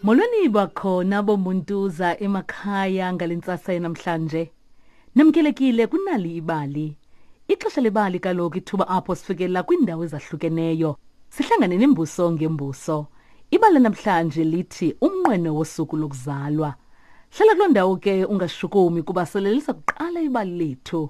Molweni bakhona bomuntuza emakhaya ngale ntsasa yanamhlanje. Namkelekile kunali ibali. Ixesha lebali kaloku ithuba apho sifikelela kwiindawo ezahlukeneyo. Sihlangane nembuso ngembuso. Ibali namhlanje lithi umnqweno wosuku lokuzalwa. Hlala kuloo ndawo ke ungashukumi kuba selelisa kuqala ibali lethu.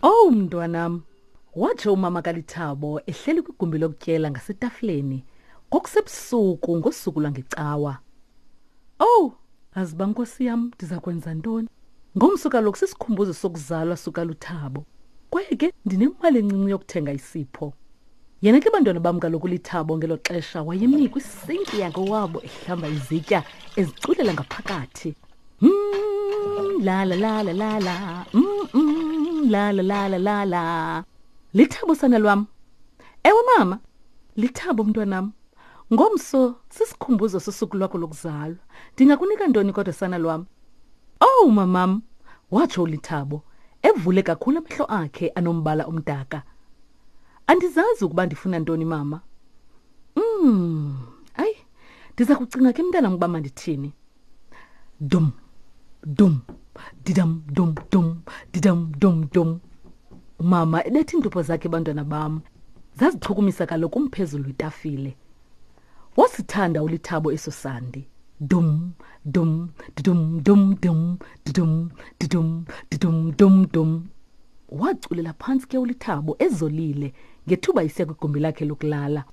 Owu mntwanam, watsho umama kaLithabo ehleli kwigumbi lokutyela ngasetafileni kwakusebusuku ngosuku lwangecawa. Owu, aziba nkosi yam ndiza kwenza ntoni? Ngomso kaloku sisikhumbuzo sokuzalwa sukaLuthabo. Kwaye ke ndinemali encinci yokuthenga isipho. Yena ke bantwana bam kaloku Lithabo ngelo xesha wayemi kwisinki yakowabo ehlamba izitya eziculela ngaphakathi. Mm, la la la la la la. Mm, mm, la la la la la la. Lithabo sana lwam. Ewe mama, Lithabo mntwanam. Ngomso sisikhumbuzo sosuku lwakho lokuzalwa. Ndingakunika ntoni kodwa sana lwam? Owu mamam, watsho uLithabo, evule kakhulu amehlo akhe anombala omdaka. Andizazi ukuba ndifuna ntoni mama. Mm, ayi, ndiza kucinga ke mntanam ukuba mandithini. Dum, dum, didam, dum, dum, didam, dum, dum. Umama ebetha iintupho zakhe bantwana bam. Zazichukumisa kaloku umphezulu wetafile. Wasithanda uLithabo eso sandi. Dum, dum, didum, dum, dum, didum, didum, didum, dum, dum. Waculela phantsi ke uLithabo ezolile ngethuba isiya kwigumbi lakhe lokulala.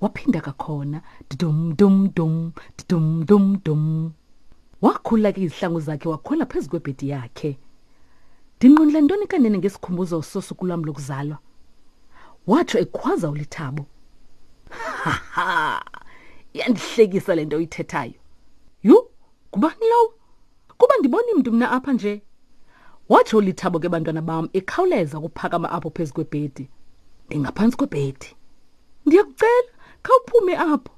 Waphinda kakhona didum, dum, dum, didum, dum, dum. Wakhulula ke izihlangu zakhe wakhwela phezu kwebhedi yakhe. Ndinqwenela ntoni kanene ngesikhumbuzo sosuku lwam lokuzalwa? Watsho ekhwaza uLithabo. Ha ha! Iyandihlekisa le nto uyithethayo. Yhu, ngubani lowo? Kuba ndiboni mntu mna apha nje. Watsho uLithabo ke bantwana bam ekhawuleza ukuphakama apho phezu kwebhedi. Ndingaphantsi kwebhedi. Ndiyakucela, khawuphume apho.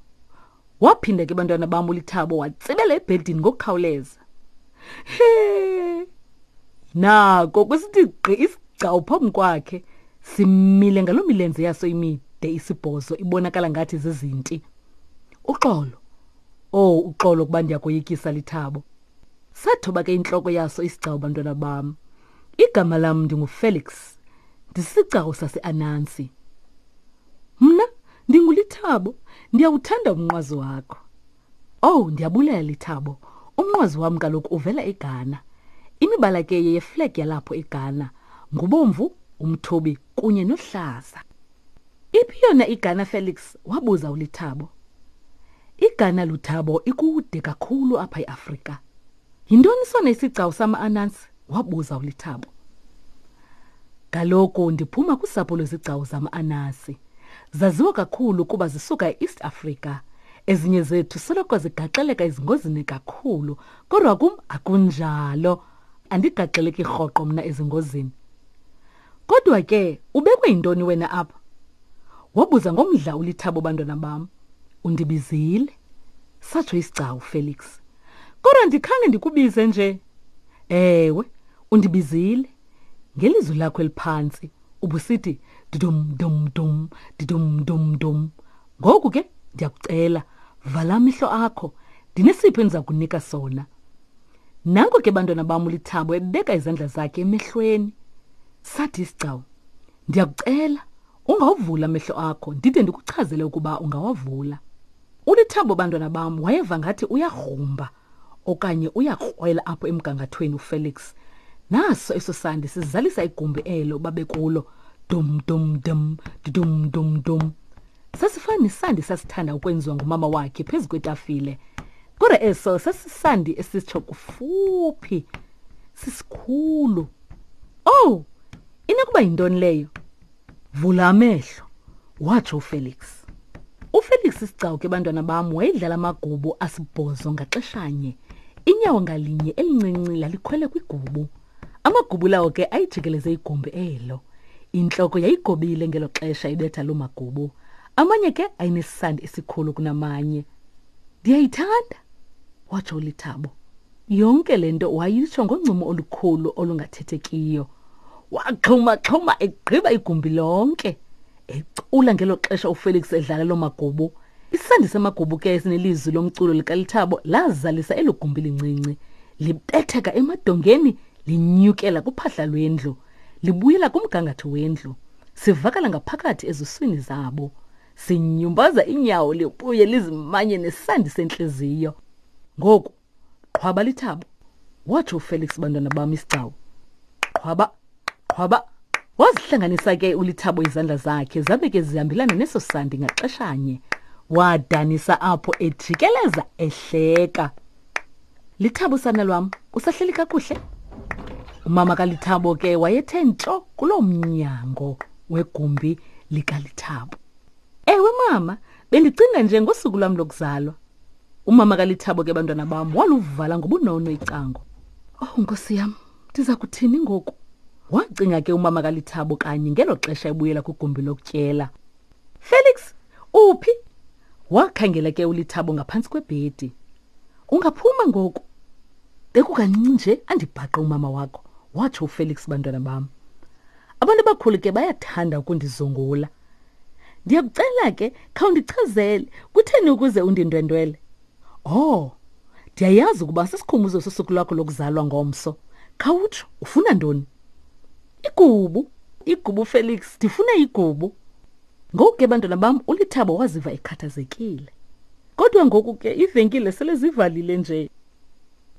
Waphinda ke bantwana bam uLithabo watsibela ebhedini ngokukhawuleza. He! Nako kwisithi gqi isigcawu phambi kwakhe simile ngaloo milenze yaso imide isibhozo ibonakala ngathi zizinti. Uxolo. Oh, uxolo kuba ndiyakoyikisa Lithabo. Sathoba ke intloko yaso isigcawu bantwana bam. Igama lam ndinguFelix. Ndisisicako saseAnansi. Mna ndinguLithabo, ndiyawuthanda umnqwazi wakho. Owu, ndiyabulela Lithabo. Umnqwazi wam kaloku uvela eGhana. Imibala ke yeyeflag yalapho eGhana, ngubomvu, umthubi kunye nohlaza. Iphi yona iGhana Felix? wabuza uLithabo. IGhana Luthabo ikude kakhulu apha eAfrika. Yintoni sona isigcawu sama-Anansi? wabuza uLithabo. Kaloku ndiphuma kusapho lwezigcawu zama-Anansi. Zaziwa kakhulu kuba zisuka e-East Africa. Ezinye zethu soloko zigaxeleka ezingozini kakhulu, kodwa kum akunjalo. Andigaxeleki rhoqo mna ezingozini. Kodwa ke ubekwe yintoni wena apha? Wabuza ngomdla uLithabo bantwana bam. Undibizile, satsho isigcawu Felix. Kodwa ndikhange ndikubize nje. Ewe, undibizile. Ngelizwi lakho eliphantsi ubusithi didum dum dum didum dum dum. Ngoku ke ndiyakucela vala amehlo akho ndinesipho endiza kunika sona. Nanko ke bantwana bam uLithabo ebeka izandla zakhe emehlweni. Sathi isigcawu, ndiyakucela ungawuvula amehlo akho ndide ndikuchazele ukuba ungawavula. ULithabo bantwana bam wayeva ngathi uyagrumba okanye uyakrwela apho emgangathweni uFelix. Naso eso sandi sizalisa igumbi elo babekulo. Dum dum dum dum dum dum. Sasifana nesandi sasithanda ukwenziwa ngumama wakhe phezu kwetafile. Kodwa eso sasisandi esitsho kufuphi sisikhulu. Oh, inokuba yintoni leyo? Vula amehlo, watsho uFelix. UFelix isigcawu ke bantwana bam wayedlala amagubu asibhozo ngaxeshanye. Inyawo ngalinye elincinci lalikhwele kwigubu. Amagubu lawo ke ayijikeleze igumbi elo. Intloko yayigobile ngelo xesha ibetha loo magubu. Amanye ke ayenesandi esikhulu kunamanye. Ndiyayithanda, watsho uLithabo. Yonke le nto wayitsho ngoncumo olukhulu olungathethekiyo. Waxhuma-xhuma egqiba igumbi lonke. Ecula ngelo xesha uFelix edlala loo magubu. Isandi samagubu ke esinelizwi lomculo likaLithabo lazalisa elo gumbi lincinci. Libetheka emadongeni linyukela kuphahla lwendlu, libuyela kumgangatho wendlu. Sivakala ngaphakathi ezuswini zabo. Sinyumbaza inyawo libuye lizimanye nesandi sentliziyo. Ngoku qhwaba lithabo, watsho uFelix bantwana bam isigcawu. Qhwaba, qhwaba. Wazihlanganisa ke uLithabo izandla zakhe zabe ke zihambelana neso sandi ngaxeshanye. Wadanisa apho ejikeleza ehleka. Lithabo sana lwam, usahleli kakuhle? Umama kaLithabo ke wayethe ntsho kuloo mnyango wegumbi likaLithabo. Ewe mama, bendicinga nje ngosuku lwam lokuzalwa. Umama kaLithabo ke bantwana bam waluvala ngobunono icango. Oh nkosi yam, ndiza kuthini ngoku? Wacinga ke umama kaLithabo kanye ngelo xesha ebuyela kwigumbi lokutyela. Felix, uphi? Wakhangela ke uLithabo ngaphantsi kwebhedi. Ungaphuma ngoku. Bekukancinci nje andibhaqe umama wakho, watsho uFelix bantwana bam. Abantu abakhulu ke bayathanda ukundizungula. Ndiyakucela ke khawundichazele kutheni ukuze undindwendwele? Oh, ndiyayazi ukuba sisikhumbuzo sosuku lwakho lokuzalwa ngomso. Khawutsho, ufuna ntoni? Igubu, igubu Felix, ndifuna igubu. Ngoku ke bantwana bam uLithabo waziva ekhathazekile. Kodwa ngoku ke ivenkile sele zivalile nje.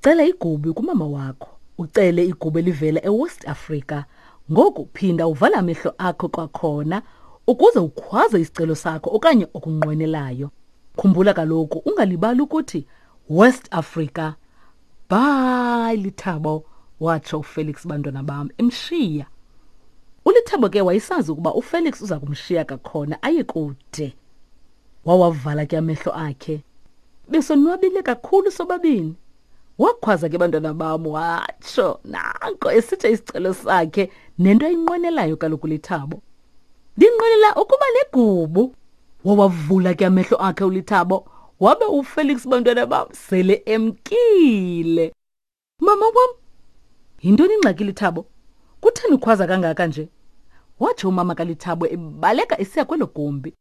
Cela igubu kumama wakho. Ucele igubu elivela eWest Africa. Ngoku phinda uvale amehlo akho kwakhona ukuze ukhwaze isicelo sakho okanye okunqwenelayo. Khumbula kaloku ungalibali ukuthi West Africa. Bye Lithabo, watsho uFelix bantwana bam emshiya. ULithabo ke wayesazi ukuba uFelix uza kumshiya kakhona aye kude. Wawavala ke amehlo akhe. Besonwabile kakhulu sobabini. Wakhwaza ke bantwana bam watsho nanko esitsho isicelo sakhe nento ayinqwenelayo kaloku Lithabo. Ndinqwenela ukuba negubu. Wawavula ke amehlo akhe uLithabo wabe uFelix bantwana bam sele emkile. Mama wam, yintoni ingxaki Lithabo? Kutheni ukhwaza kangaka nje? Watsho umama kaLithabo ebaleka esiya kwelo gumbi.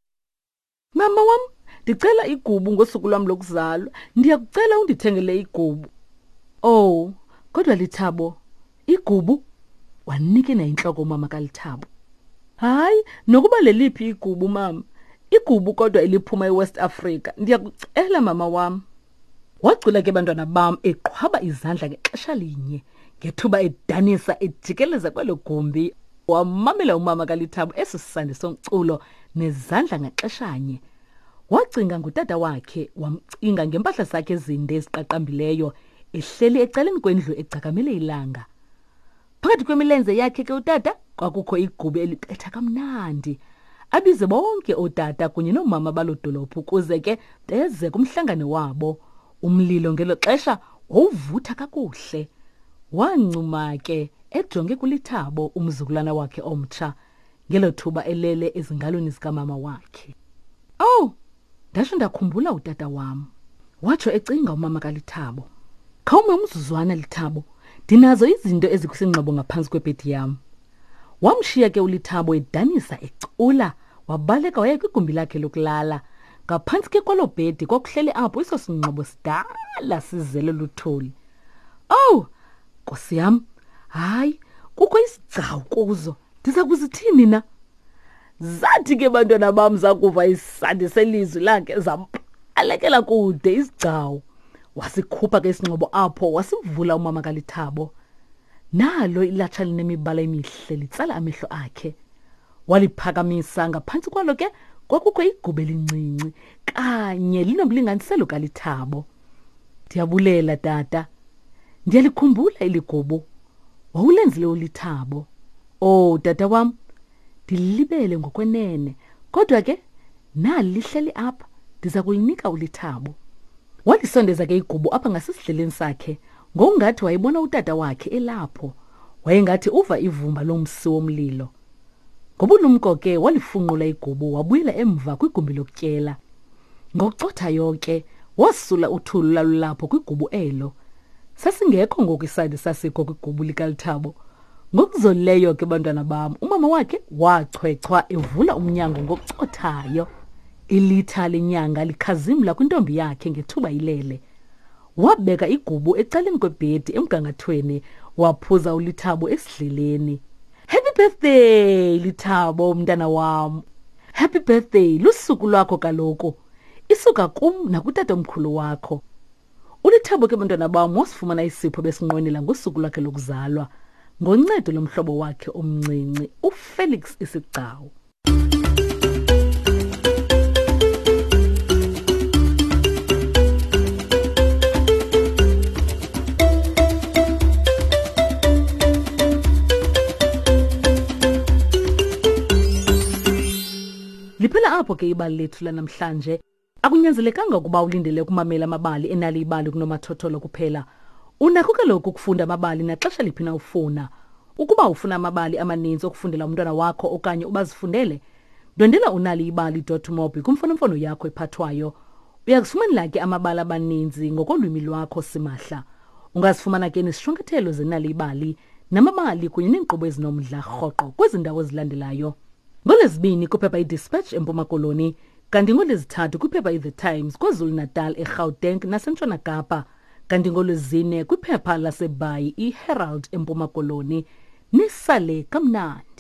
Mama wam, ndicela igubu ngosuku lwam lokuzalwa. Ndiyakucela undithengele igubu. Oh, kodwa Lithabo, igubu? Wanikina intloko umama kaLithabo. Hayi, nokuba leliphi igubu mama. Igubu kodwa eliphuma eWest Africa. Ndiyakucela mama wam. Wacula ke bantwana bam eqhwaba izandla ngexesha linye ngethuba edanisa ejikeleza kwelo gumbi. Wamamela umama kaLithabo eso sandi somculo nezandla ngaxeshanye. Wacinga ngutata wakhe, wamcinga ngempahla zakhe ezinde eziqaqambileyo ehleli ecaleni kwendlu egcakamele ilanga. Phakathi kwemilenze yakhe ke utata kwakukho igubu elibetha kamnandi. Abize bonke ootata kunye noomama baloo dolophu ukuze ke beze kumhlangano wabo. Umlilo ngelo xesha wawuvutha kakuhle. Wancuma ke ejonge kuLithabo umzukulwana wakhe omtsha ngelo thuba elele ezingalweni zikamama wakhe. Owu, Ndatsho ndakhumbula utata wam, watsho ecinga umama kaLithabo. Khawume umzuzwana, Lithabo, ndinazo izinto ezikwisingxobo ngaphantsi kwebhedi yam. Wamshiya ke uLithabo edanisa ecula, wabaleka waya kwigumbi lakhe lokulala. Ngaphantsi ke kwaloo bhedi kwakuhleli apho eso singxobo sidala sizele luthuli. Owu, nkosi yam, hayi, kukho isigcawu kuzo. Ndiza kuzithini na? Zathi ke bantwana bam zakuva isandi selizwi lakhe zambalekela kude isigcawu. Wasikhupha ke isingxobo apho wasivula umama kaLithabo. Nalo ilatsha linemibala emihle litsala amehlo akhe. Waliphakamisa ngaphantsi kwalo ke kwakukho igubu elincinci kanye linomlinganiselo kaLithabo. Ndiyabulela tata. Ndiyalikhumbula eli gubu. Wawulenzile uLithabo. Oh tata wam, ndilibele ngokwenene kodwa ke nali lihleli apha ndiza kulinika ulithabo walisondeza ke igubu apha ngasesidleleni sakhe ngokungathi wayebona utata wakhe elapho wayengathi uva ivumba lomsi womlilo ngobulumko ke walifunqula igubu wabuyela emva kwigumbi lokutyela ngokucothayo ke Wasula uthulu lalulapho kwigubu elo. Sasingekho ngoku isandi sasikho kwigubu likaLithabo. Ngokuzolileyo ke bantwana bam, umama wakhe wachwechwa evula umnyango ngokucothayo. Ilitha lenyanga likhazimla kwintombi yakhe ngethuba ilele. Wabeka igubu ecaleni kwebhedi emgangathweni, waphuza uLithabo esidleleni. Happy birthday Lithabo mntana wam. Happy birthday lusuku lwakho kaloku. Isuka kum nakutatomkhulu wakho. ULithabo ke bantwana bam wasifumana isipho besinqwenela ngosuku lwakhe lokuzalwa ngoncedo lomhlobo wakhe omncinci uFelix Isigcawu. Liphela apho ke ibali lethu lanamhlanje. Akunyanzelekanga ukuba ulindele ukumamela amabali enali ibali kunomathotholo kuphela. Unakho kaloku ukufunda amabali naxesha liphi na ufuna. Ukuba ufuna amabali amaninzi okufundela umntwana wakho okanye ubazifundele, ndwendela unaliibali.mobi kwimfonomfono yakho ephathwayo. Uyakuzifumanela ke amabali abaninzi ngokolwimi lwakho simahla. Ungazifumana ke nezishwankathelo zenali ibali namabali kunye neenkqubo ezinomdla rhoqo kwezi ndawo zilandelayo. NgoLwezibini kwiphepha iDispatch eMpuma Koloni, kanti ngoLwezithathu kwiphepha iThe Times KwaZulu-Natal, eGauteng naseNtshona Kapa, kanti ngoLwezine kwiphepha laseBhayi iHerald eMpuma Koloni. Nisale kamnandi.